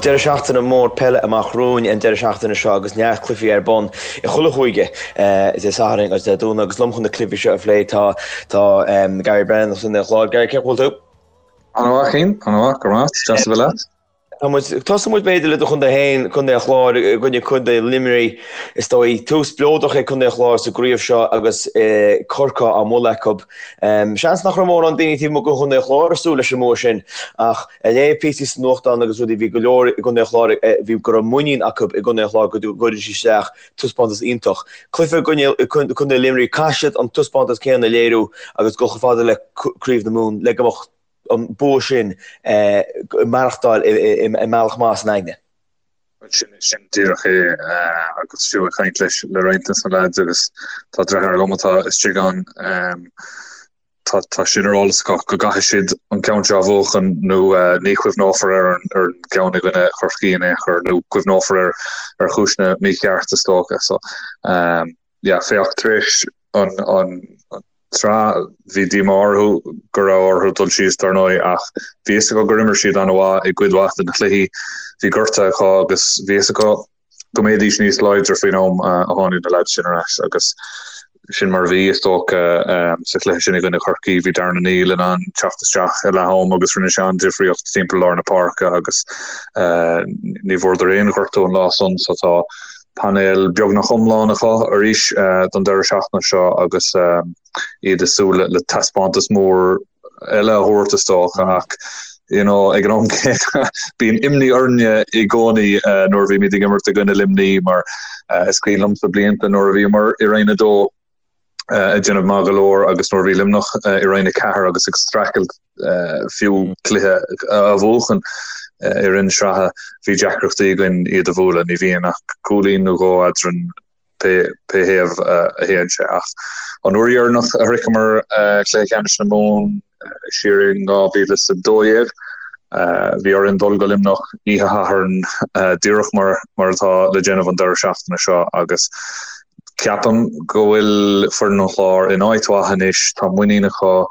deireadh seachtaine mór peile amach romhainn an deireadh seachtaine seo agus neart cluichí ar bun i chuile chúige Dé Sathairn agus Dé Domhnaigh agus liom chun na cluichí seo a phlé tá tá Gary Brennan as Contae an Chláir. Gary, cén chaoi a bhfuil tú? An-mhaith, Cian, an-mhaith, go raibh maith, deas a bheith leat. Tá muid, tosóidh muid b'fhéidir le do chontae féin, Contae an Chláir i gcoinne Contae Luimnigh. Is dóigh, tús spleodrach ag Contae an Chláir sa gcraobh seo agus Corcaigh á mbualadh acu. Seans nach raibh mórán daoine taobh amuigh de Chontae an Chláir ag súil leis an mbua sin ach ag léamh píosaí sa nuachtán agus rudaí, bhí go leor i gContae an Chláir, bhí go raibh muinín acu i gContae an Chláir go gcuirfidh siad isteach taispeántas iontach. Cluiche i gcoinne Contae Luimnigh, caithfidh siad an taispeántas céanna a léiriú agus dul chomh fada le Craobh na Mumhan le go mbeadh an bua sin ag maireachtáil i mbealach maith san aigne. Sin, sin díreach é agus fiú ag caint leis le roinnt de na lads agus tá deartháir liom atá istigh ann, tá tá sin ar eolas acu go gcaithfidh siad an ceann seo a bhuachan nó ní chuimhneofar ar an ar an gceann i gcoinne Chorcaí in aon chor nó cuimhneofar air ar chúiseanna mícheart is dócha. So yeah, féach, tar éis an tsraith, bhí díomá orthu go raibh orthu dul síos, dar ndóigh, ach bhí fhios acu gur imir siad an-mhaith i gcuid mhaith de na cluichí. Bhí gortuithe acu agus bhí fhios acu go mbeidís níos láidre faoin am a tháinig na leaids sin ar ais agus sin mar a bhí, is dócha, sa chluiche sin i gcoinne Chorcaí. Bhí Darren O'Neill in ann teacht isteach i leath am agus rinne sé an-difríocht timpeall lár na páirce agus ní bhfuaireadar aon ghortú an lá san so tá Painéal beagnach iomlán acu arís don deireadh seachtaine seo agus iad ag súil le taispeántas mór eile a thabhairt is dócha ach you know ag an am céanna bíonn imní orainne i gcónaí nuair a bhímid ag imirt i gcoinne Luimnigh mar is cuimhin liomsa blianta nuair a bhíomar i Roinn 2 ag déanamh maith go leor agus nuair a bhí Luimneach i Roinn 4 agus ag streachailt fiú cluiche a bhuachan i rith na sraithe, bhí deacrachtaí againn iad a bhualadh. Ní bhíonn ach cúilín nó dhó eadrainn pé thaobh a théann sé. Ach an uair dheireanach a shroicheamar cluiche ceannais na Mumhan, siar in 2012, bhí orainn dul go Luimneach oíche Shathairn díreach mar atá le déanamh an deireadh seachtaine seo agus Ceapaim go bhfuil foireann an Chláir in áit mhaith anois, tá muinín acu,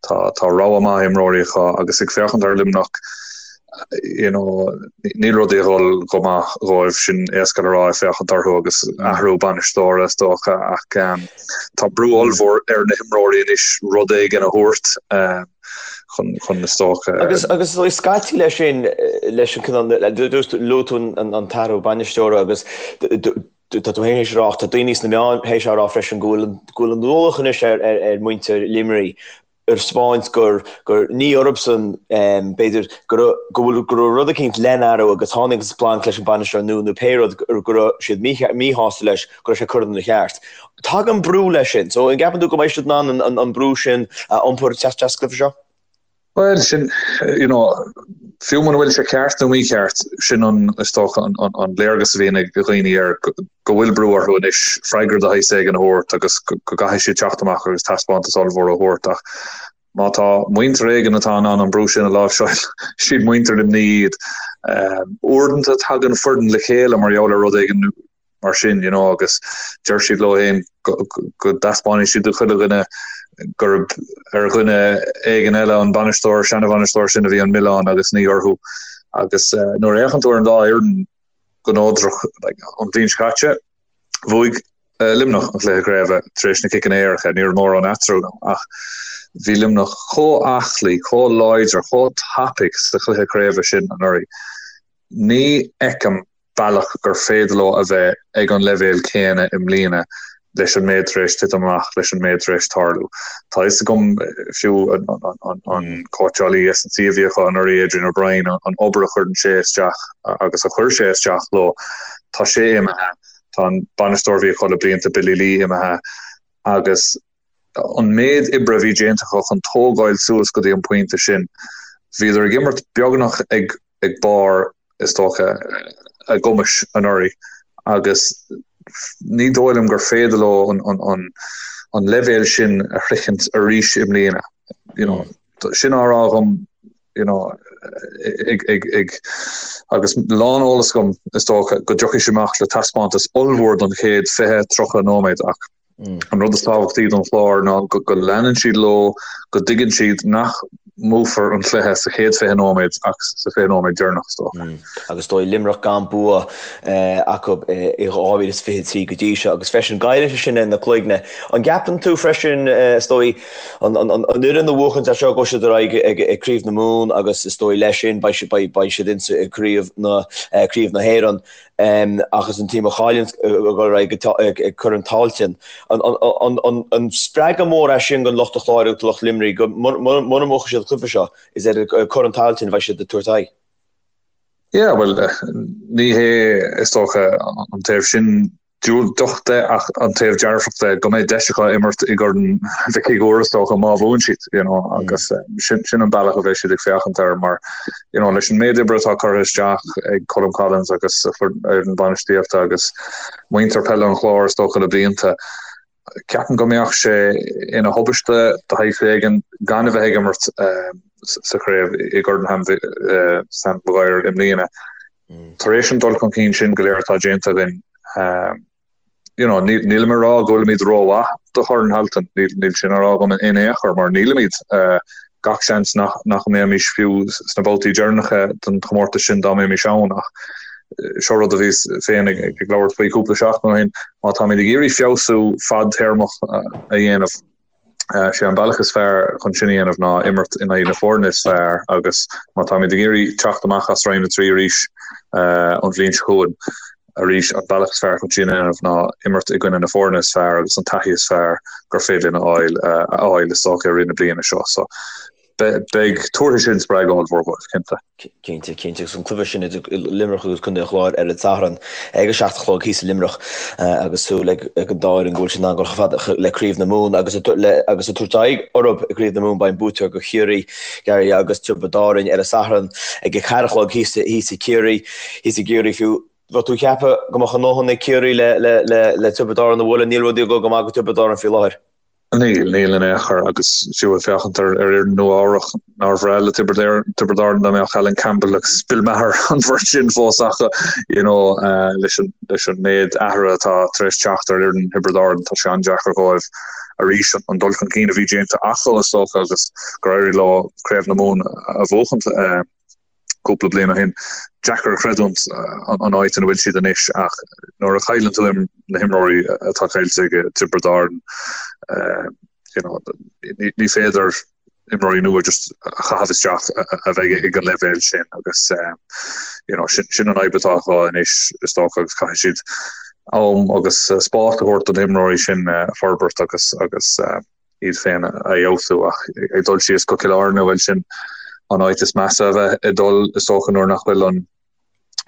tá tá rogha maith imreoirí acu agus ag féachaint ar Luimneach, you know, níl rudaí ag dul go maith dhóibh, sin éasca le rá ag féachaint orthu agus athrú bainisteora is dócha ach tá brú ollmhór ar na himreoirí anois rud éigin a thabhairt chun chun is dócha. Agus agus scaití leis sin leis an cineál luaigh tú an t-athrú bainisteora agus Tá tú féin théis a rá, ach tá daoine sna meáin théis a rá freisin go bhfuil go bhfuil an ualach anois ar ar mhuintir Luimnigh ar spáint gur gur ní orthusan b'fhéidir go raibh go bhfuil go raibh rud eicínt le n-athrú agus tháinig an splanc leis an bainisteoir nua nó pé rud go raibh siad míshásta leis go raibh sé curtha ina cheart. Tagann brú leis sin. So an gceapann tú go mbeidh siad in ann an an brú sin a iompar isteach sa gcluiche seo? Bhuel, sin, you know, fiú muna bhfuil sé ceart nó mícheart, sin an, is dócha, an, an, an léargas a bhíonn ag dhaoine air, go, go bhfuil brú orthu anois freagra de shaghas éigin a thabhairt agus go, go gcaithfidh siad teacht amach agus taispeántas ollmhór a thabhairt ach má tá muintir éigin atá in ann an brú sin a láimhseáil, siad muintir Luimnigh iad. Uaireanta tagann foireann le chéile mar gheall ar rud éigin mar sin, you know, agus deir siad leo féin go dtaispeánfaidh siad do chuile dhuine gurb ar dhuine éigin eile, an bainisteoir, seana-bhainisteoir sin a bhí an milleán agus ní orthu. Agus nuair a fhéachann tú ar an dá fhoireann go neodrach, like, an bhliain seo caite, bhuaigh Luimneach an cluiche craoibhe tar éis na ciceanna éirice, ní raibh mórán eatarthu ach bhí Luimneach chomh aclaí, chomh láidir, chomh tapaidh sa chluiche craoibhe sin anuraidh. Ní fheicim bealach gur féidir leo a bheith ag an leibhéal céanna i mbliana leis an méid tar éis titim amach, leis an méid tar éis tarlú. Tá fhios agam fiú an cóitseálaí S&C a bhí acu anuraidh, Adrian O'Brien, an obair a chuireann sé isteach agus a chuir sé isteach leo, tá sé imithe, tá an bainisteoir a bhí acu le blianta, Billy Lee, imithe agus an méid oibre a bhí déanta acu chun tógáil suas go dtí an pointe sin, bhíodar ag imirt beagnach ag ag barr, is dócha, a gcumais anuraidh agus ní dóigh liom gur féidir leo an leibhéal sin a shroichint arís i mbliana. You know, sin á rá agam, you know, ag, ag, ag, agus lán eolas agam, is dócha, go dtiocfaidh siad amach le taispeántas ollmhór don chéad 20, 30 nóiméad ach an rud is tábhachtaí don Chlár ná go, go leanann siad leo, go dtuigeann siad nach. mbuafar an cluiche sa chéad 20 nóiméad ach sa 20 nóiméad deireanach, is dócha. Agus is dóigh Luimneach gan bua acu i 2023 go dtí seo agus freisin Gaillimh sin ar na cloigne. An gceapann tú freisin, is dóigh, an fhoireann a bhuachanns é seo gabhfaidh siad ar aghaidh ag Craobh na Mumhan agus is dóigh leis sin beidh siad insa Craobh na Craobh na hÉireann. Ach is an team a chailleann ag dul ar aghaidh ag Corn Tailteann. An spreagadh mór é sin don lucht an Chláir agus do lucht Luimnigh go mura mbuafaidh siad an cluiche seo, is ar Corn Tailteann a bheidh siad ag tabhairt aghaidh? Yeah, bhuel, ní hé is dócha an taobh sin diúltach de ach an taobh dearfach de go mbeidh deis acu imirt i gCorn Mhic Uidhir is dócha má bhuann siad, you know, agus sin an bealach a bheidh siad ag féachaint air mar you know, leis an méid oibre atá curtha isteach ag Colm Collins agus a fhoireann bainistíochta agus muintir peile an Chláir is dócha le blianta, ceapaim go mbeadh sé ina thubaiste de shaghas éigin gan a bheith ag imirt sa chraobh i gCorn Sam Maguire i mbliana. Tar éis an dul chun cinn sin go léir atá déanta againn, you know, nílim ag rá go bhfuilimid rómhaith do Chorn Tailteann, níl sin á rá agam in aon chor, mar nílimid. Gach seans nach nach mbeimis fiú sna babhtaí deireanacha den chomórtas sin dá mbeimis ann, ach seo rud a bhíos féin ag ag labhairt faoi cúpla seachtain ó shin, má táimid ag iarraidh feabhsú fadtéarmach a dhéanamh, Sé an bealach is fearr chun sin a dhéanamh ná imirt in aghaidh na foirne is fearr agus má táimid ag iarraidh teacht amach as Roinn 3 arís an bhliain seo chugainn arís, an bealach is fearr chun sin a dhéanamh ná imirt i gcoinne na foirne is fearr agus an taithí is fearr gur féidir linn a fháil a fháil is dócha i rith na bliana seo. So beidh, tabharfaidh sin spreagadh ollmhór dóibh, cinnte. Cinnte, cinnte. Agus an cluiche sin idir Luimneach agus Contae an Chláir ar an Satharn ag a 7 a chlog thíos i Luimneach agus súil ag an dá fhoireann go bhfuil siad in ann dul chomh fada le Craobh na Mumhan agus agus ag tabhairt aghaidh orthu i gCraobh na Mumhan beidh an buaiteoir de Chiarraí, Gary agus Tiobraid Árann ar an Satharn ag a 4 a chlog thíos thíos i Ciarraí, thíos i gCiarraí fiú. Bheadh tú ag ceapadh go mbeadh a ndóthain ag Ciarraí le le le le Tiobraid Árann a bhualadh, níl rudaí ag dul go maith do Tiobraid Árann faoi láthair. Níl, níl in aon chor, agus fiú ag féachaint ar fhoireann Nua Eabhrach, nár bhreá le Tiobraid Árann dá mbeadh Alan Campbell agus Bill Maher, an bheirt sin fós acu, you know, leis an, leis an méid athraithe atá tar éis teacht ar fhoireann Thiobraid Árann, tá sé an-deacair dhóibh arís an dul chun cinn a bhí déanta acu, is dócha, agus gur éirigh leo Craobh na Mumhan a bhuachaint. cúpla bliain ó shin. Deacair a chreidiúint an áit ina bhfuil siad anois ach nuair a chailleann tú na himreoirí atá caillte ag Tiobraid Árann, you know, ní féidir imreoirí nua just a chaitheamh isteach a bheidh ag an leibhéal sin agus you know, sin, sin an fhadhb atá acu anois is dócha agus caithfidh siad am agus spás a thabhairt do na himreoirí sin forbairt agus agus iad féin a fheabhsú ach ag dul síos go Cill Airne, bhuel sin an áit is measa a bheith ag dul is dócha nuair nach bhfuil an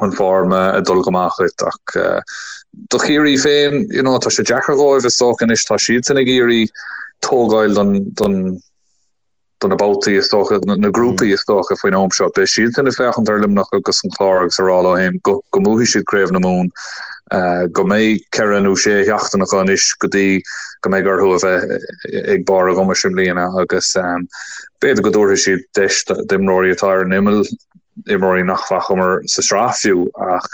an form ag dul go maith dhuit ach do Chiarraí féin you know tá sé deacair dhóibh is dócha anois tá siadsan ag iarraidh tógáil don don do na babhtaí is dócha, na grúpaí is dócha faoin am seo. Beidh siadsan ag féachaint ar Luimneach agus an Clár agus ag rá leo féin go go mbuafaidh siad Craobh na Mumhan, go mbeidh ceithre nó sé sheachtain acu anois go dtí go mbeidh orthu a bheith ag barr a gcumais i mbliana agus b'fhéidir go dtabharfaidh siad deis d'imreoirí atá ar an imeall, imreoirí nach bhfacamar sa tsraith fiú ach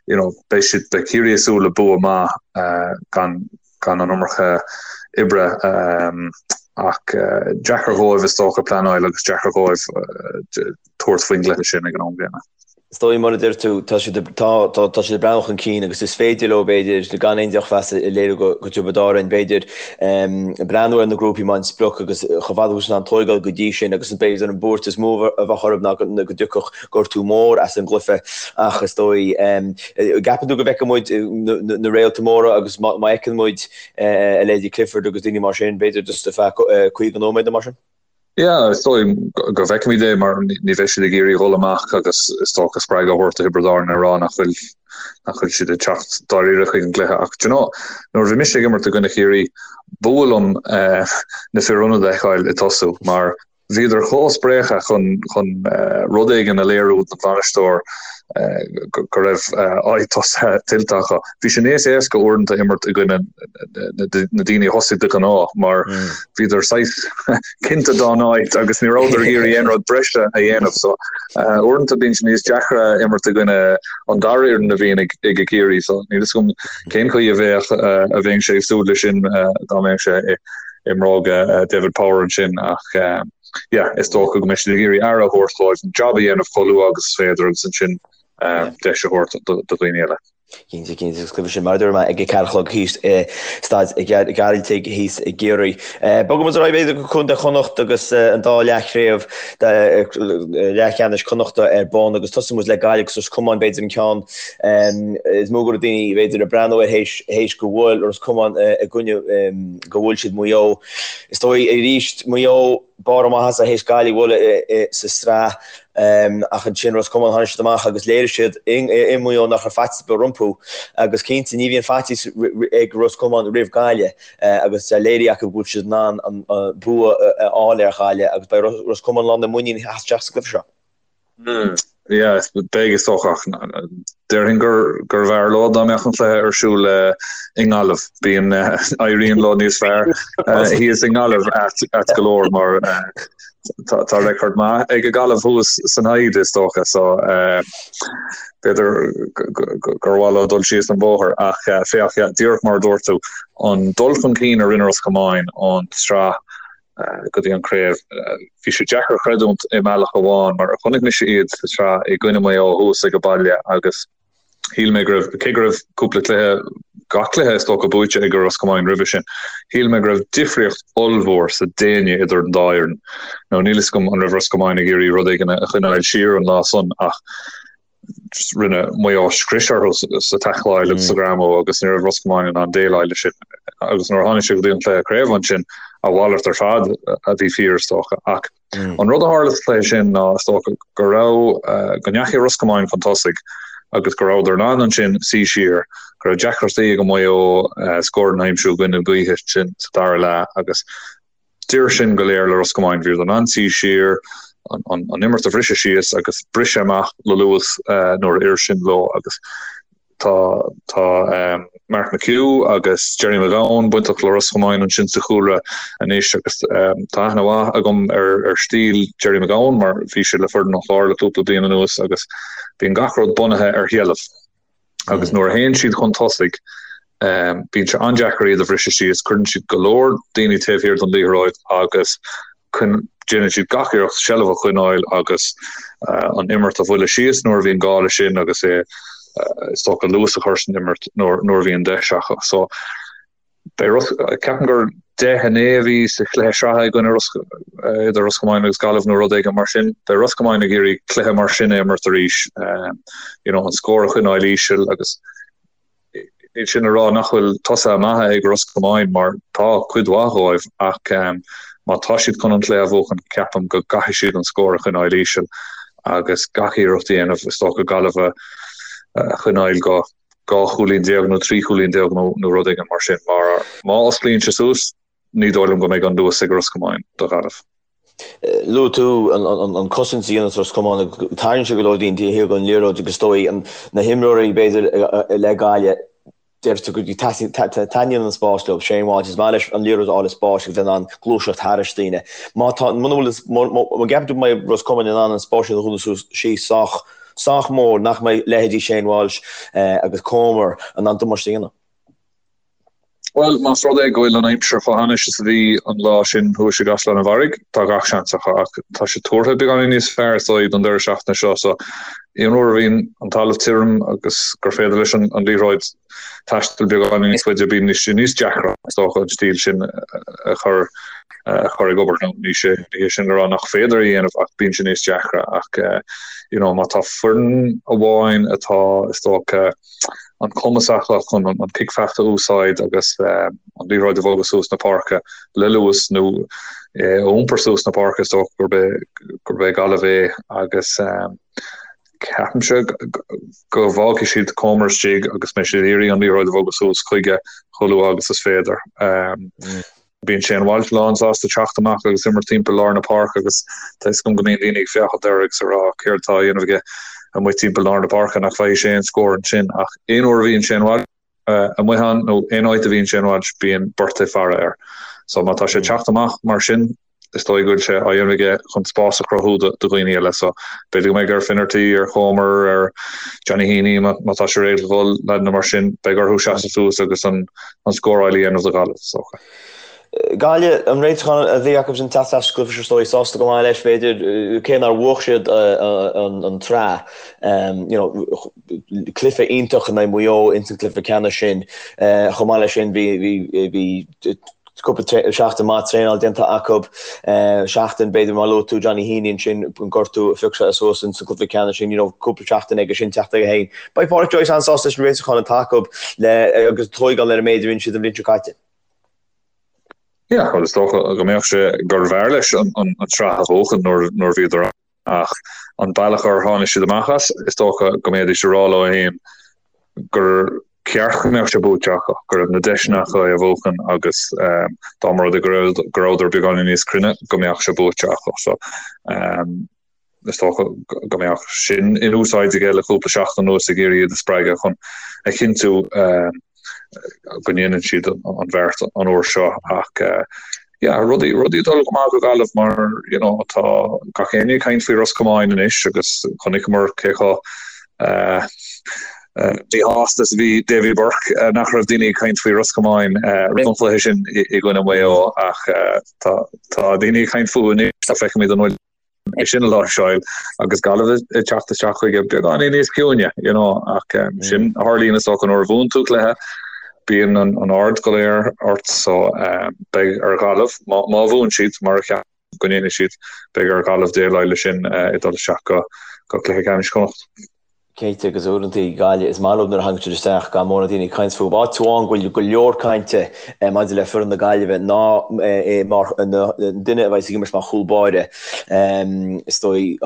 you know beidh siad, beidh Ciarraí ag súil le bua maith gan gan an iomarca oibre ach deacair dhóibh is dócha pleanáil agus deacair dhóibh tabhairt faoin gcluiche sin ag an am gcéanna. Is dóigh, mar a deir tú, tá siad tá tá tá siad ag breathnú chun cinn agus is féidir leo, b'fhéidir, gan aon drochmheas a léiriú go go Tiobraid Árann, b'fhéidir, breathnú ar na grúpaí mar an sprioc agus chomh fada agus in ann tóigeáil go dtí sin agus b'fhéidir an buairt is mó a bheadh orthu ná go dtiocfadh gortú mór as an gcluiche ach is dóigh, gceapann tú go bhfeicfidh muid na réalta móra agus má fheiceann muid a leithéidí Clifford agus daoine mar sin, b'fhéidir just ar feadh 50 nóiméad nó mar sin? Yeah, is dóigh go bhfeicfimid é mar ní bheidh siad ag iarraidh dhul amach agus is dócha spreagadh a thabhairt do Thiobraid Árann ag rá nach bhfuil nach bhfuil siad ag teacht dáiríre chuig an gcluiche ach do you know, nuair a bhí mise ag imirt i gcoinne Chiarraí, b'fhuath liom na fir ionaid a fheiceáil ag tosú mar Bhíodar chomh spréachta chun chun rud éigin a léiriú don bhainisteoir go raibh áit tosaithe tuillte acu. Bhí sé níos éasca uaireanta imirt i gcoinne na daoine a thosaigh de ghnáth mar bhíodar saghas cinnte dá n-áit agus ní rabhadar ag iarraidh aon rud breise a dhéanamh. So uaireanta bíonn sé níos deacra imirt i gcoinne an dara fhoireann a bhíonn ag ag Ciarraí. So níl fhios agam cén chaoi a bheadh a bheinnse ag súil leis sin dá mbeadh sé i i mbróga David Power ansin ach. yeah, is dócha go mbeidh siad ag iarraidh aire a thabhairt dóibh, an jab a dhéanamh chomh luath agus is féidir agus ansin deis a thabhairt do dhaoine eile. Cinnte, cinnte, agus cluiche sin mar a dúirt mé ag a 4 a chlog thíos i Staid Ghearaltaigh thíos i gCiarraí. Bogfaidh muid ar aghaidh b'fhéidir go Contae Chonnacht agus an dá leathchraobh leathcheannais Connachta ar bun agus tosóidh muid le Gaillimh agus Ros Comáin b'fhéidir an ceann is mó go raibh daoine b'fhéidir ag breathnú air théis go bhfuair Ros Comáin i gcoinne go bhuail siad Maigh Eo. Is dóigh arís Maigh Eo barr a maitheasa théis Gaillimh a bhualadh sa tsraith ach ansin Ros Comáin tháinig siad amach agus léirigh siad i Maigh Eo nach raibh faitíos ar bith rompu agus cinnte ní bhíonn faitíos ag Ros Comáin roimh Gaillimh agus léirithe acu go bhfuil siad in ann an bua a fháil ar Ghaillimh agus beidh Ros Comáin lán de mhuinín ag teacht isteach sa gcluiche seo. Yeah, beidh is dócha ach déarfainn gur gurbh fhearr leo dá mbeadh an cluiche ar siúl i nGaillimh. Bíonn éiríonn leo níos fearr thíos i nGaillimh ait go leor mar tá tá record maith ag Gaillimh thuas san Hyde is dócha so b'fhéidir gur mhaith leo dul síos an bóthar ach féach díreach mar a dúirt tú an dul chun cinn a rinne Ros Comáin ón tsraith go dtí an craobh. Bhí sé deacair a chreidiúint i mbealach amháin mar chonaic mise iad sa tsraith i gcoinne Maigh Eo thuas ag a baile agus shíl mé go raibh, cé go raibh cúpla cluiche, gach cluiche is dócha buaite ag Ros Comáin roimhe sin, shíl mé go raibh difríocht ollmhór sa déine idir an dá fhoireann. Now níl fhios agam an raibh Ros Comáin ag iarraidh rud éigin a choinneáil siar an lá san ach rinne Maigh Eo scrios orthu sa taicleáil agus sa ghreamú agus ní raibh Ros Comáin in ann déileáil leis sin. Agus nuair a tháinig sé go dtí an cluiche craoibhe ansin, a mhalairt ar fad a bhí fíor is dócha. Ach an rud a tharla sa chluiche sin ná is dócha go raibh, go ndeachaigh Ros Comáin chun tosaigh agus go rabhadar in ann ansin suí siar, go raibh deacrachtaí ag Maigh Eo scóranna a aimsiú i gcoinne na gaoithe sin sa dara leath agus D'oir sin go léir le Ros Comáin. Bhíodar in ann suí siar, an imirt a bhriseadh síos agus briseadh amach le luas nuair a oir sin leo agus tá tá Mark McHugh agus Gerry McGowan bainteach le Ros Comáin ansin sa chúlra anois agus tá aithne mhaith agam ar ar stíl Gerry McGowan mar bhí sé le foireann an Chláir le cúpla bliain anuas agus bíonn gach rud bunaithe ar sheilbh. Agus nuair a théann siad chun tosaigh, bíonn sé an-deacair iad a bhriseadh síos, cuireann siad go leor daoine taobh thiar den liathróid agus déanann siad gach iarracht seilbh a choinneáil agus an imirt a bhualadh síos nuair a bhíonn gá leis sin agus é is dócha luas a chur san imirt nuair a bhíonn deis acu. So, Beidh Ros, ceapaim gur 10 9 a bhí sa chluiche sraithe i gcoinne Ros, idir Ros Comáin agus Gaillimh nó rud éigin mar sin. Beidh Ros Comáin ag iarraidh cluiche mar sin a imirt arís, you know, an scór a choinneáil íseal agus níl sin a rá nach bhfuil tosaithe maithe ag Ros Comáin mar tá cuid mhaith dhóibh ach má tá siad chun an cluiche a bhuachan ceapaim go gcaithfidh siad an scór a choinneáil íseal agus gach iarracht a dhéanamh is dócha Gaillimh a choinneáil go 12 chúilín nó 13 chúilín nó rud éigin mar sin, mar má osclaíonn sé suas, ní dóigh liom go mbeidh an luas ag Ros Comáin do Ghaillimh. Luaigh tú an cosaint a dhéanann Ros Comáin agus tarraingíonn sé go leor daoine taobh thiar den liathróid agus is dóigh na himreoirí b'fhéidir le Gaillimh, deir tú go taitníonn an spás leo. Shane Walsh, is maith leis an liathróid a fháil i spás agus bheith in ann gluaiseacht thairis daoine. Má tá, muna bhfuil, má gceapann tú go mbeidh Ros Comáin in ann an spás sin a dhúnadh suas síos sách sách mór nach mbeidh leithéidí Shane Walsh agus Comer in ann damáiste a dhéanamh. Bhuel, más rud é go bhfuil an aimsir chomh hainnis is a bhí an lá sin thuas i gCaisleán an Bharraigh, tá gach seans acu ach tá sé tuartha beagáinín níos fearr is dóigh don deireadh seachtaine seo so aon uair a bhíonn an talamh tirim agus gur féidir leis an liathróid taisteal beagáinín níos faide, bíonn sé níos deacra is dócha an stíl sin a chur a chur ag obair. Nó ní sé ní hé sin le rá nach féidir a dhéanamh ach bíonn sé níos deacra ach you know má tá foireann amháin atá is dócha an cumas acu chun an cic feachta a úsáid agus an liathróid a bhogadh suas na páirce le luas nó a iompar suas na páirce is dócha gurb é gurb é Gaillimh é agus ceapaimse go bhfágfaidh siad Comer istigh agus mbeidh siad ag iarraidh an liathróid a bhogadh suas chuige chomh luath agus is féidir. Bíonn Shane Walsh lán sásta teacht amach agus imirt timpeall lár na páirce agus tá fhios agam go mbíonn daoine ag féachaint air agus ag rá céard atá á dhéanamh aige amuigh timpeall lár na páirce, nach bhfaighidh sé aon scór ansin ach aon uair a bhíonn Shane Walsh amuigh ann nó aon áit a bhíonn Shane Walsh bíonn beirt ag faire air. So má tá sé ag teacht amach mar sin is dóigh go bhfuil sé á dhéanamh aige chun spás a chruthú do dhaoine eile. So b'fhéidir go mbeidh ar Finnerty, ar Chomer, ar Johnny Heaney má tá sé réidh le dhul, leaideanna mar sin, beidh orthu seasamh suas agus an scóráil a dhéanamh do Ghaillimh, is dócha. Gaillimh, an réiteachán a bhí acu sin teacht as cluiche is dóigh, sásta go maith leis b'fhéidir, cé nár bhuaigh siad an tsraith. You know, cluiche iontach in aghaidh Mhaigh Eo ins an cluiche ceannais sin. Chomh maith leis sin bhí bhí bhí cúpla seachtain maith traenáil déanta acu. Seachtain b'fhéidir mar luaigh tú Johnny Heaney ansin an gortú a phioc sé suas ins an cluiche ceannais sin, you know, cúpla seachtain aige sin teacht aige féin. Beidh Pádraic Joyce an-sásta leis an réiteachán atá acu le agus tóigeáil ar an méid a rinne siad an bhliain seo caite. Yeah, bhuel is dócha go mbeadh sé gurbh fhearr leis an tsraith a bhuachan nuair nuair bhíodar ann ach an bealach ar tháinig siad amach as, is dócha go mbeidís ag rá leo féin gur ceart go mbeadh sé buaite acu, go raibh na deiseanna acu é a bhuachan agus dá mba rud é go raibh go rabhadar beagáinín níos cruinne go mbeadh sé buaite acu. So is dócha go mbeadh sin in úsáid aige le cúpla seachtain anuas ag iarraidh iad a spreagadh chun a chinntiú go ndéanann siad an bheart an uair seo ach yeah rudaí rudaí ag dul go maith do Ghaillimh mar you know tá gach éinne ag caint faoi Ros Comáin anois agus chonaiceamar cé chomh míshásta is a bhí Davy Burke nach raibh daoine ag caint faoi Ros Comáin roimh an chluiche sin i gcoinne Mhaigh Eo ach tá tá daoine ag caint fúthu anois tá feicfimid an bhfuil é sin a láimhseáil agus Gaillimh ag teacht isteach chuige beagáinín níos ciúine, you know, ach sin a tharlaíonn is dócha nuair a bhuann tú cluiche, bíonn an aird go léir ort so beidh ar Ghaillimh, má bhuann siad, mar a cheapaim go ndéanfaidh siad, beidh ar Ghaillimh déileáil leis sin ag dul isteach go cluiche ceannais Chonnacht. Cinnte, agus uaireanta Gaillimh, is maith leo nuair a thagann siad isteach gan mórán daoine ag caint fúthu. Áit amháin go bhfuil go leor cainte maidir le foireann na Gaillimhe ná mar an duine a bheas ag imirt mar chúl báire. Is dóigh,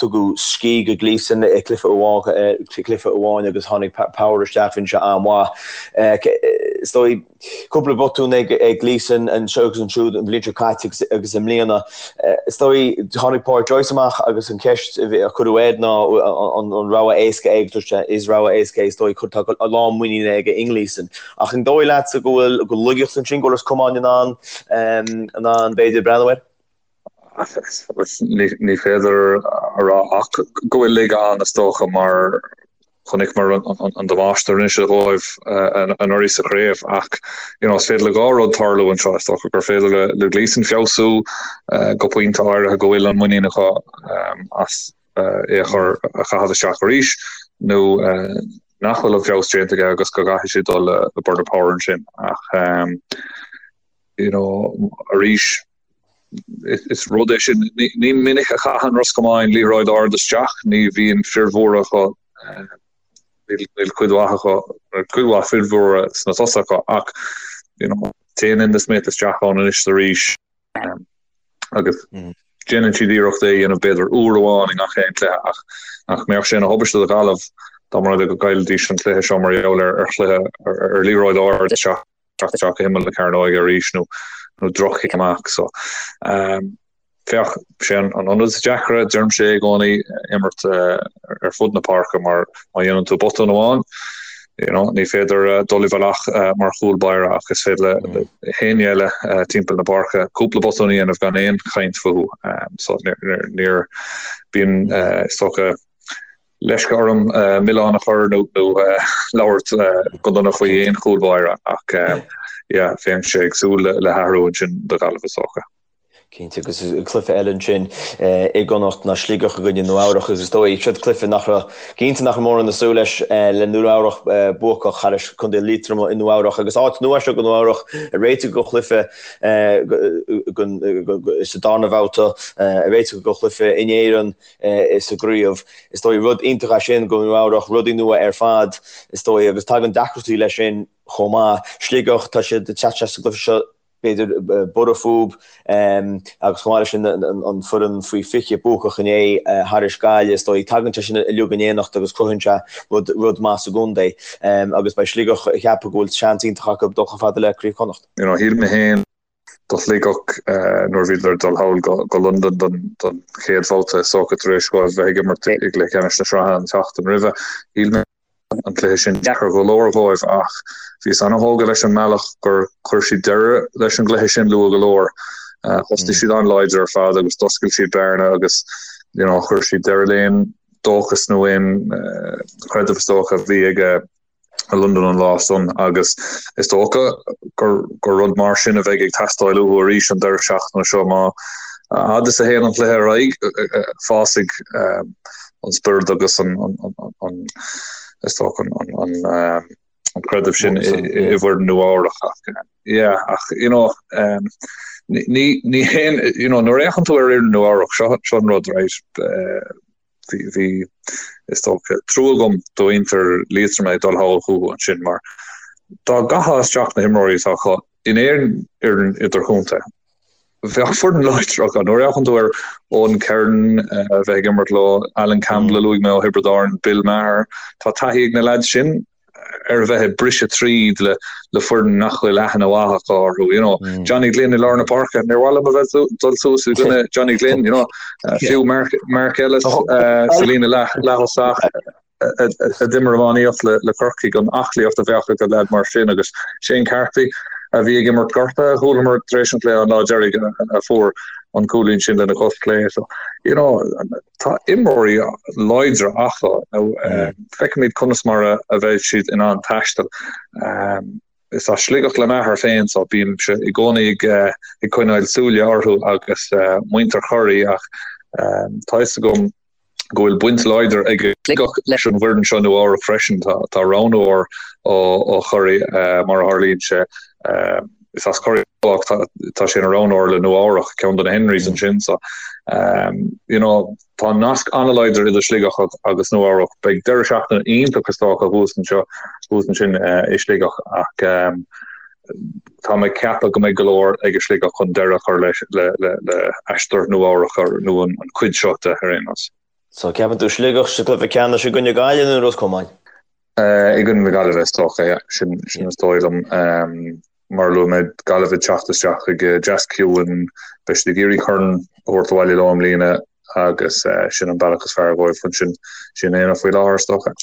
tugadh scíth do Gleeson i gcluiche cluiche amháin agus tháinig Power isteach, bhí sé an-mhaith. Is dóigh, Cúpla botún ag Gleeson anseo agus ansiúd an bhliain seo caite agus i mbliana. Is dóigh, tháinig Pádraic Joyce amach agus an cheist a cuireadh air ná an rogha éasca é agus dúirt sé is rogha éasca é is dóigh, tá a lán muiníne aige i nGleeson. Ach an dóigh leatsa go bhfuil go laigeacht ansin, go bhfuil Ros Comáin in ann in ann b'fhéidir breathnú air? Ní féidir a rá ach go bhfuil laige ann is dócha mar chonaiceamar an damáiste a rinne sé dhóibh anuraidh sa chraobh ach you know is féidir le dhá rud tarlú anseo is dócha gur féidir le le Gleeson feabhsú go pointe áirithe go bhfuil an muinín acu as é a chur a chaitheamh isteach arís nó nach bhfuil an feabhas déanta aige agus go gcaithfidh siad dul le Bernard Power ansin ach you know arís Is rud é sin, ní minic a chaitheann Ros Comáin liathróid ard isteach, ní bhíonn fir mhóra acu, níl cuid mhaith acu, cuid mhaith fir mhóra sna tosaithe acu ach you know téann Enda Smith isteach ann anois is arís agus déanann siad iarracht é a dhéanamh b'fhéidir uair amháin i ngach aon chluiche ach nach mbeadh sé ina thubaiste do Ghaillimh dá mba rud é go gcaillfidís an cluiche seo mar gheall ar chluiche ar liathróid ard isteach. teacht isteach go himeall na cearnóige arís nó nó droch-chic amach. So féach, sé an ionad is deacra, deirimse i gcónaí, imirt ar fud na páirce mar má dhéanann tú botún amháin, you know, ní féidir dul i bhfolach mar chúl báire ach is féidir le héinne eile timpeall na páirce cúpla botún a dhéanamh gan aon chaint fúthu. So níor bíonn is dócha leisce orm milleán a chur nó labhairt go dona faoi aon chúl báire ach yeah bheinnse ag súil le hathrú ansin do Ghaillimh is dócha. Cinnte, agus cluiche eile ansin i gConnacht ná Sligeach i gcoinne Nua Eabhrach agus is dóigh siod cluiche nach raibh, cinnte nach raibh mórán ag súil leis le Nua Eabhrach buacach thar Contae Liatroma i Nua Eabhrach agus áit nua seo do Nua Eabhrach ag réiteach do chluiche sa darna bhabhta, ag réiteach do chluiche in Éirinn. sa gcraobh. Is dóigh rud iontach é sin do Nua Eabhrach, rudaí nua ar fad is dóigh agus tagann deacrachtaí leis sin chomh maith. Sligeach, tá siad ag teacht isteach sa gcluiche seo b'fhéidir borradh fúb agus chomh maith leis sin an foireann faoi 20 buacach inné thairis Gaillimh is dóigh. Tagann sé sin uilig in éineacht agus cruthaíonn sé rud rud maith sa gcontae agus beidh Sligeach ag ceapadh go bhfuil seans iontach acu dul chomh fada le Craobh Chonnacht. You know, shíl mé féin do Shligeach nuair a bhíodar ag dul thall go Londain don chéad bhabhta is dócha tar éis dóibh bheith ag imirt i gcluiche ceannais na sraithe an tseachtain roimhe. Shíl mé an cluiche sin deacair go leor dhóibh ach bhíos an-thógtha leis an mbealach gur chuir siad deireadh leis an gcluiche sin luath go leor. Thosaigh siad an-láidir ar fad agus d'oscail siad bearna agus you know chuir siad deireadh le haon dóchas nó aon chreideamh is dócha a bhí ag. I Londain an lá san agus is dócha gur gur rud mar sin a bheidh ag teastáil uathu arís an deireadh seachtaine seo. Má a fhad is a théann an cluiche ar aghaidh, fásfaidh an spiorad agus an an is dócha an an an creideamh sin i bhfoireann Nua Eabhrach ach yeah ach you know ní ní haon you know nuair a fhéachann tú ar fhoireann Nua Eabhrach seo seo an rud right Bhí, is dócha, trua agam do mhuintir Liatroma ag dul thall chucu ansin mar dá gcaithfeá isteach na himreoirí atá acu in aon fhoireann idirchontae, bheadh foireann láidir acu. Nuair a fhéachann tú ar Eoghan Kerin a bheith ag imirt leo, Alan Campbell a luaigh mé ó Thiobraid Árann, Bill Maher, tá taithí ag na leaids sin. ar a bheith ag briseadh tríd le le foireann nach bhfuil aithne mhaith acu orthu, you know. Johnny Glynn i lár na páirce, níor mhaith liom a bheith dul suas i gcoinne Johnny Glynn, you know. Fiú Mark, Mark Ellis sa líne leath, leath-thosach a d'imir iománaíocht le, le Corcaigh, an aclaíocht a bheadh ag leaid mar sin agus Shane Carthy a bhí ag imirt gortaithe, chualamar tar éis an chluiche an lá deiridh a fuair an cúilín sin lena chos clé. So, you know, Tá imreoirí láidre acu. Feicfimid conas mar a bheidh siad in ann taisteal. Is as Sligeach le m'athair féin so bímse i gcónaí ag coinneáil súile orthu agus muintir Chiarraí ach tá fhios agam go bhfuil baint láidir ag Sligeach leis an bhfoireann seo Nua Eabhrac freisin. Tá roghnóir ó Chiarraí mar a tharlaíonn sé. Is as Ciarraí dó ach tá sé ina roghnóir le Nua Eabhrach, ceann de na Henrys ansin so you know tá nasc an-láidir idir Sligeach agus Nua Eabhrac. Beidh deireadh seachtaine iontach is dócha thuas anseo, thuas ansin i Sligeach ach tá mé ag ceapadh go mbeidh go leor ag Sligeach chun deireadh a chur leis le le le aistear Nua Eabhrac nó an chuid seo de ar aon nós. So ceapann tú Sligeach sa gcluiche ceannais i gcoinne Gaillimh nó Ros Comáin? I gcoinne na Gaillimhe is dócha, yeah. Sin sin is dóigh liom. Mar a luaigh mé, Gaillimh ag teacht isteach chuig deasc ciúin, beidh siad ag iarraidh corn a thabhairt abhaile leo i mbliana agus sin an bealach is fearr dhóibh chun sin sin a dhéanamh faoi láthair is dócha.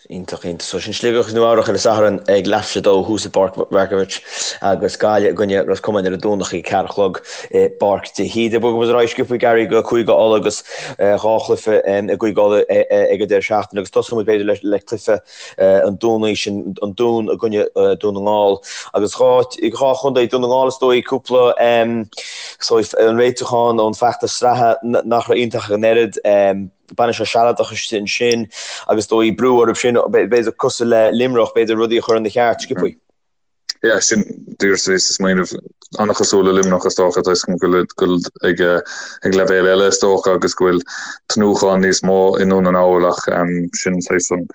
Iontach, iontach. So sin Sligeach agus Nua Eabhrach ar an Satharn ag leathuair tar éis a dó thuas i bPáirc Mharkievicz agus Gaillimh i gcoinne Ros Comáin ar an Domhnach ag a ceathair a chlog i bPáirc de hÍde. Bogfaidh muid ar aghaidh sciobtha Gary go Cúige Uladh agus dhá chluiche i gCúige Uladh ag an deireadh seachtaine agus tosóidh muid b'fhéidir le cluiche an Domhnaigh sin an Dún i gcoinne Dún na nGall agus dhá dhá chontae Dún na nGall is dóigh cúpla so an réitiúchán ón feachtas sraithe nach raibh iontach ach an oiread baineadh sé sealadach ansin agus dóigh brú orthu sin b'fhéidir cosúil le Luimneach b'fhéidir rudaí a chur ina cheart sciobtha. Yeah, sin díreach a bhíos ag smaoineamh an-chosúil le Luimneach is dócha, tá a fhios agam go bhfuil ag ag leibhéal eile is dócha agus go bhfuil tnúthán níos mó i nDún na nGall ach sin saghas an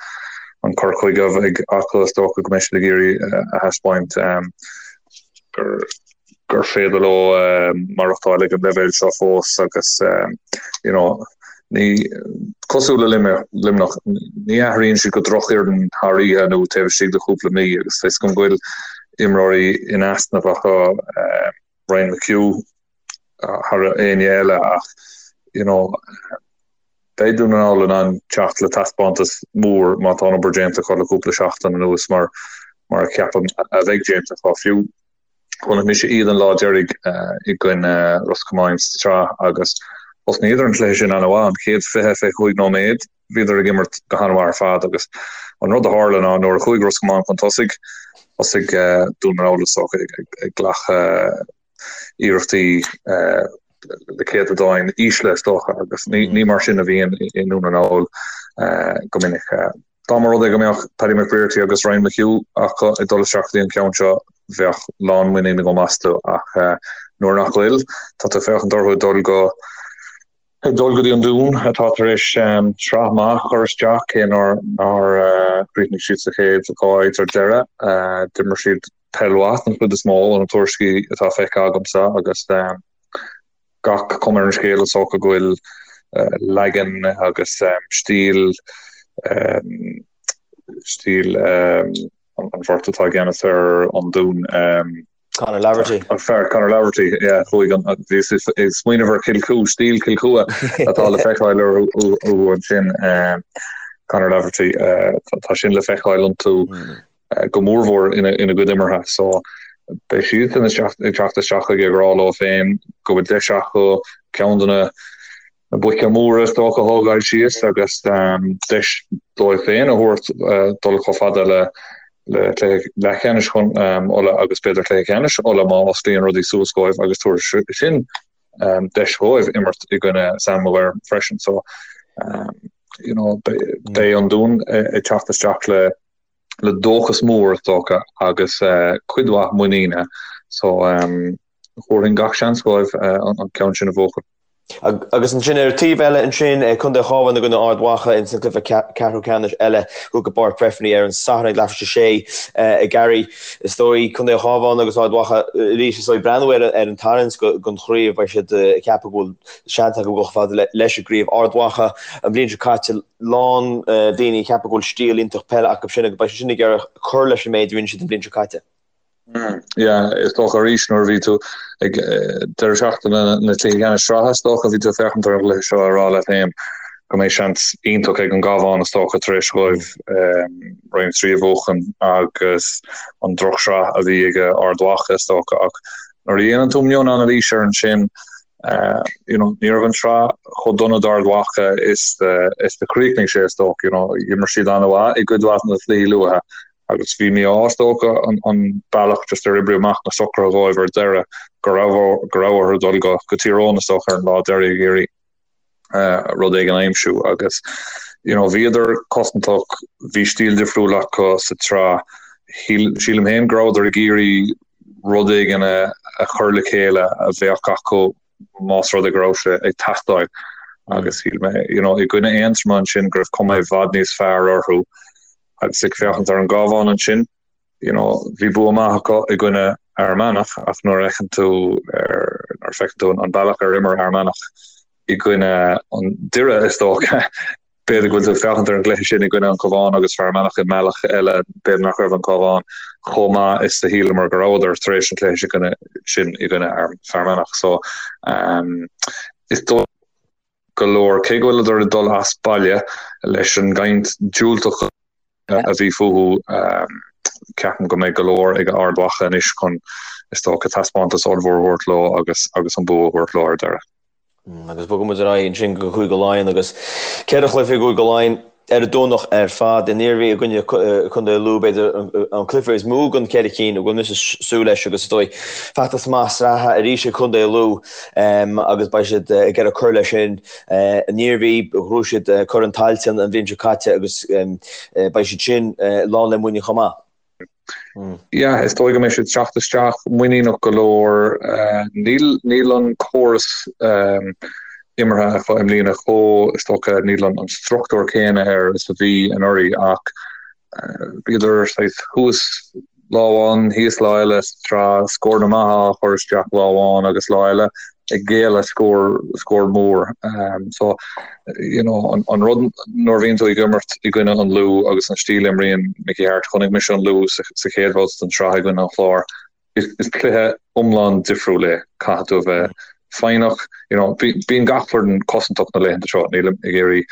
an cur chuige a bheidh acu is dócha go mbeidh siad ag iarraidh a thaispeáint gur gur féidir leo maireachtáil ag an leibhéal seo fós agus you know Ní cosúil le Luimneach, ní athraíonn siad go drochfhoireann thar oíche nó taobh istigh de chúpla mí agus tá a fhios agam go bhfuil imreoirí in easnamh acu, Ryan McHugh thar éinne eile ach you know beidh Dún na nGall in ann teacht le taispeántas mór má tá an obair déanta acu le cúpla seachtain anuas mar mar a cheapaim a bheidh déanta acu fiú. Chonaic mise iad an lá deiridh i gcoinne Ros Comáin sa tsraith agus thosnaíodar an cluiche sin an-mhaith. An chéad 20, 25 nóiméad bhíodar ag imirt go han-mhaith ar fad agus an rud a tharla ná nuair a chuaigh Ros Comáin chun tosaigh, thosaigh Dún na nGall is dócha ag glacadh iarrachtaí le céatadáin ísle is dócha agus ní mar sin a bhíonn i nDún na nGall go minic. Dá mba rud é go mbeadh Paddy McBrearty agus Ryan McHugh acu ag dul isteach go dtí an ceann seo, bheadh lánmhuinín agam astu ach nuair nach bhfuil, tá tú ag féachaint orthu ag dul go ag dul go dtí an Dún atá tar éis sraith maith a chur isteach, cé nár nár chríochnaigh siad sa chéad dhá áit ar deireadh. D'imir siad peil mhaith den chuid is mó ó na tuairiscí atá feicthe agamsa agus gach cuma ar an scéal is dócha go bhfuil leagan agus stíl stíl an bheirt atá i gceannas ar an Dún. Conor Laverty. An fear Conor Laverty, yeah, chuaigh an bhíos ag smaoineamh ar Chill Chua, stíl Chill Chua atá le feiceáil orthu ansin. Conor Laverty, tá sin le feiceáil iontu. go mórmhór ina gcuid imeartha. So beidh siadsan ag teacht isteach ag rá leo féin go bhfuil deis acu ceann de na. Na boic móra is dócha a thógáil síos agus deis dóibh féin a thabhairt dul chomh fada le cluiche leathcheannais Uladh agus b'fhéidir cluiche ceannais Uladh má osclaíonn rudaí suas dhóibh agus tabharfaidh sin deis dhóibh imirt i gcoinne Sam Maguire freisin. So you know beidh an Dún ag teacht isteach le le dóchas mór is dócha agus cuid mhaith muiníne. So thabharfainn gach seans dhóibh an ceann sin a bhuachan. Agus ansin ar an taobh eile ansin, Contae an Chabháin i gcoinne Ard Mhacha ins an gcluiche ceathrú ceannais eile thuas i bPáirc Breffni ar an Satharn ag leathuair tar éis a sé a Gary. Is dóigh Contae an Chabháin agus Ard Mhacha arís is dóigh breathnú ar an tarraingt don chraobh beidh siad ag ceapadh go bhfuil seans acu dul chomh fada leis an gcraobh. Ard Mhacha an bhliain seo caite lán daoine ag ceapadh go bhfuil stíl iontach peile acu sin agus beidh siad sin ag iarraidh cur leis an méid a rinne siad an bhliain seo caite. Yeah, is dócha arís nuair a bhí tú ag deireadh seachtaine na cluichí ceannais sraithe, is dócha bhí tú ag féachaint ar an gcluiche seo ag rá leat féin go mbeidh seans iontach ag an gCabhán is dócha tar éis dhóibh Roinn 3 a bhuachan agus an drochshraith a bhí ag Ard Mhacha is dócha ach nuair a dhéanann tú mion-anailís air ansin you know, ní raibh an tsraith chomh dona d'Ard Mhacha is is a chríochnaigh sé is dócha, you know, d'imir siad an-mhaith i gcuid mhaith de na cluichí luatha Agus bhí mí-ádh is dócha an bealach just ar oibrigh amach na socruithe dhóibh ar deireadh go raibh go raibh orthu dul go go Tír Eoghain is dócha ar an lá deiridh ag iarraidh rud éigin a aimsiú agus you know bhíodar cosantach, bhí stíl difriúil acu sa tsraith. Shíl sílim féin go rabhadar ag iarraidh rud éigin a a chur le chéile a bheadh acu más rud é go raibh sé ag teastáil agus shíl mé you know i gcoinne Aontroma ansin go raibh cuma i bhfad níos fearr orthu Agus ag féachaint ar an gCabhán ansin, you know, bhí bua maith acu i gcoinne Fhear Manach ach nuair a fheiceann tú ar, nuair a feiceann tú an bealach ar imir Fhear Manach i gcoinne an Doire is dócha, b'fhéidir go bhfuil tú ag féachaint ar an gcluiche sin i gcoinne an Chabháin agus Fear Manach i mbealach eile, b'fhéidir nach raibh an Cabhán chomh maith is a shíleamar go rabhadar tar éis an chluiche sin i gcoinne Fear Manach. So, um, is dóigh go leor, cé go bhfuileadar ag dul as baile leis an gcaint diúltach a bhí fúthu, ceapaim go mbeidh go leor ag Ard Mhacha anois chun, is dócha, taispeántas ollmhór a thabhairt leo agus agus an bua a thabhairt leo ar deireadh. Agus bogfaidh muid ar aghaidh ansin go Cúige Laighean agus 4 chluiche i gCúige Laighean. Ar an Domhnach ar fad, an Iarmhí i gcoinne Chontae Lú, b'fhéidir an cluiche is mó den cheithre cinn a bhfuil mise ag súil leis agus is dóigh feachtas maith sraithe arís ag Contae Lú agus beidh siad ag iarraidh cur leis sin. An Iarmhí, ghnóthaigh siad Corn Tailteann an bhliain seo caite agus beidh siad sin lán le muinín chomh maith. Yeah, is dóigh go mbeidh siad ag teacht isteach muiníneach go leor. Níl, níl an córas imeartha acu i mbliana chomh, is dócha, níl an struchtúr céanna air is a bhí anuraidh ach bhíodar saghas thuas lá amháin, thíos lá eile sa tsraith, scóranna maithe á chur isteach lá amháin agus lá eile ag géilleadh scór, scór mór. So, you know, an, an rud nuair a bhíonn tú ag imirt i gcoinne an Lú agus an stíl a imríonn Mickey Harte, chonaic mise an Lú sa, sa chéad bhabhta den tsraith i gcoinne an Chláir, is, is cluiche iomlán difriúil é. Caithfidh tú a bheith foighneach, you know, bí, bíonn gach foireann cosantach na laethanta seo, nílim ag iarraidh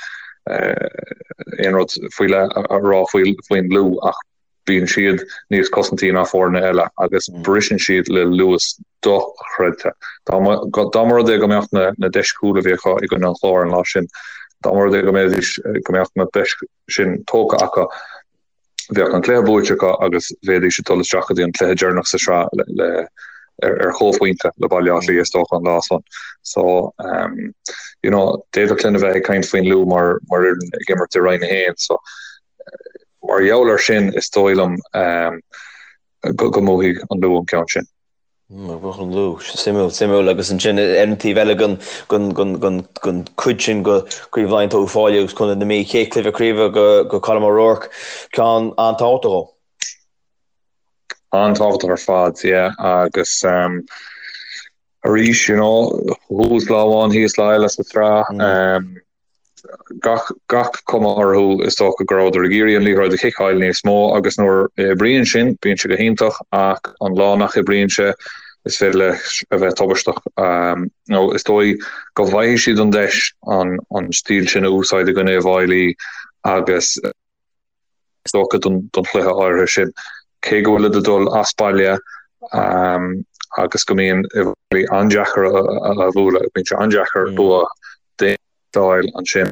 eh, aon rud faoi leith a, a rá faoi, faoin Lú ach Bíonn siad níos cosantaí ná foirne eile agus briseann siad le luas dochreidte. Dá mba rud é go mbeadh na deis cúil a bhí acu i gcoinne an Chláir an lá sin, dá mba rud é go mbeidís, go mbeadh na deis sin tógtha acu, bheadh an cluiche buaite acu agus bheidís ag dul isteach go dtí an cluiche deireanach sa sraith le ar chomhphointe le Baile Átha Cliath is dócha an lá san. So, you know, d'fhéadfadh linn a bheith ag caint faoin Lú mar mar fhoireann ag imirt i Roinn 1. So, Mar gheall air sin, is dóigh liom go mbuafaidh an Lú an ceann sin. Buafaidh an Lú. Suimiúil, suimiúil. Agus ansin ar an taobh eile den chuid sin de Chraobh Laighean tá Uíbh Fhailí agus Contae na Mí. Chéad chluiche craoibhe do Colm O'Rourke. Ceann an-tábhachtach dó. An-tábhachtach ar fad, yeah. Agus arís, you know, thuas lá amháin, thíos lá eile sa tsraith. Gach, gach cuma orthu, is dócha go rabhadar ag iarraidh an liathróid a chiceáil níos mó agus nuair a oibríonn sin, bíonn sé go hiontach ach an lá nach oibríonn sé, is féidir leis a bheith tubaisteach. Nó is dóigh go bhfaighidh siad an deis an, an stíl sin a úsáid i gcoinne Uíbh Fhailí agus, is dócha, don chluiche áirithe sin. Cé go bhfuilid ag dul as baile agus go mbíonn Uíbh Fhailí an-deacair a bhualadh, bíonn sé an-deacair bua. d'fháil ansin.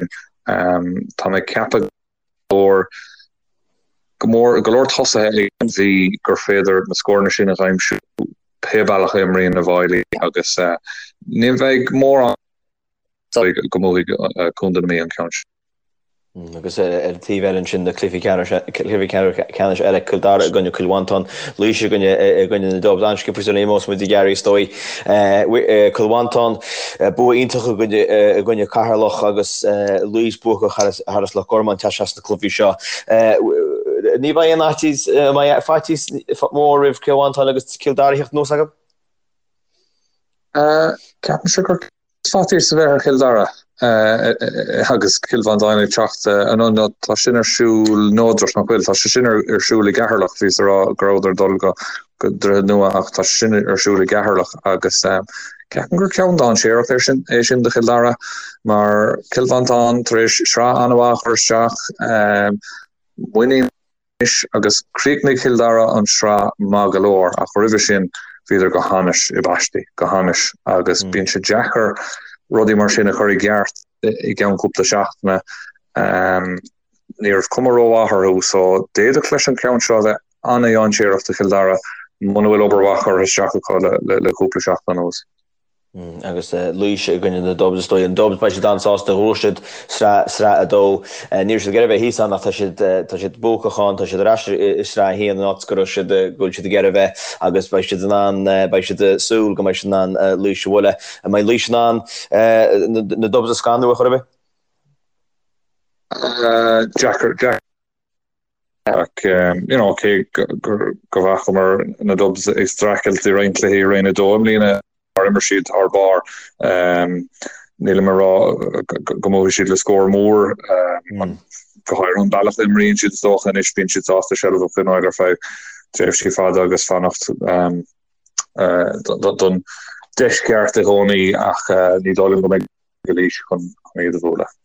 Tá mé ag ceapadh go leor go mór go leor tosaithe ag an Mhí gur féidir na scóranna sin a aimsiú pé bealach a imríonn na bhFailí agus ní bheidh mórán go mbuafaidh Contae na Mí an ceann sin. Agus ar an taobh eile ansin na cluichí ceannais eile, Cill Dara i gcoinne Chill Mhantáin, Laois i gcoinne i gcoinne na Dubs. An-sciobtha sula n-imeos muid a Gary is dóigh. Cill Mhantáin, bua iontach i gcoinne i gcoinne Ceatharlach agus Laois buacach thar Loch Garman teacht isteach sna cluichí seo. Ní bheidh aon fhaitíos, an mbeidh faitíos mór roimh Chill Mhantáin agus Cill Dara a theacht anuas acu? Ceapaimse gur Faitíos a bheith ar Chill Dara agus Cill Mhantáin ag teacht anonn. Nó tá sin ar siúl neodrach, nach bhfuil? Tá sé sin ar siúl i gCeatharlach. Bhíos ag rá go rabhadar ag dul go Droichead Nua ach tá sé sin ar siúl i gCeatharlach agus ceapaim gur ceann dainséarach é sin é sin do Chill Dara mar Cill Mhantáin tar éis sraith an-mhaith a chur isteach, muinín anois agus chríochnaigh Cill Dara an tsraith maith go leor ach roimhe sin bhíodar go hainnis i bpaistí, go hainnis agus bíonn sé deacair rudaí mar sin a chur i gceart i gceann cúpla seachtaine. Ní raibh cuma rómhaith orthu so d'fhéadfadh leis an ceann seo a bheith an-dhainséarach do Chill Dara muna bhfuil obair mhaith curtha isteach acu le cúpla seachtain anuas. Agus Laois i gcoinne na Dubs, is dóigh. An Dubs, beidh siad an-sásta, ghnóthaigh siad sraith, sraith 2. Ní raibh siad ag iarraidh a bheith thíos ann ach tá siad, tá siad buacach ann, tá siad ar ais i sraith 1, an áit go raibh siad, go bhfuil siad ag iarraidh a bheith agus beidh siad in ann, beidh siad ag súil go mbeidh siad in ann Laois a bhualadh. An mbeidh Laois in ann na Dubs a scanrú ar chor ar bith? Deacair, deacair. Ach you know cé go bhfacamar na Dubs ag streachailt i roinnt cluichí i Roinn 2 i mbliana mar imir siad thar barr, nílim ag rá go mbuafaidh siad le scór mór, go háirithe an bealach a imríonn siad is dócha anois, bíonn siad sásta seilbh a choinneáil ar feadh tréimhsí fada agus fanacht don deis cheart i gcónaí ach ní dóigh liom go mbeidh ag Laois chun iad a bhualadh.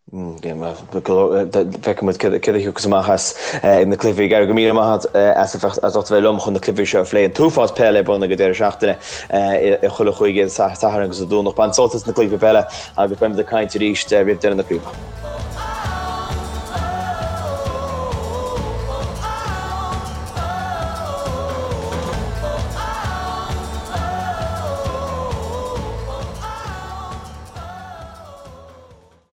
Feicfidh muid céard a thiocfas amach as na cluichí. Gary, go míle maith agat as ucht a bheith liom chun na cluichí seo a phlé. An t-uafás peile ar bun ag an deireadh seachtaine i chuile chúige, Satharn agus Domhnach. Bain sult as na cluichí peile agus beimid ag caint arís roimh deireadh na craoibhe.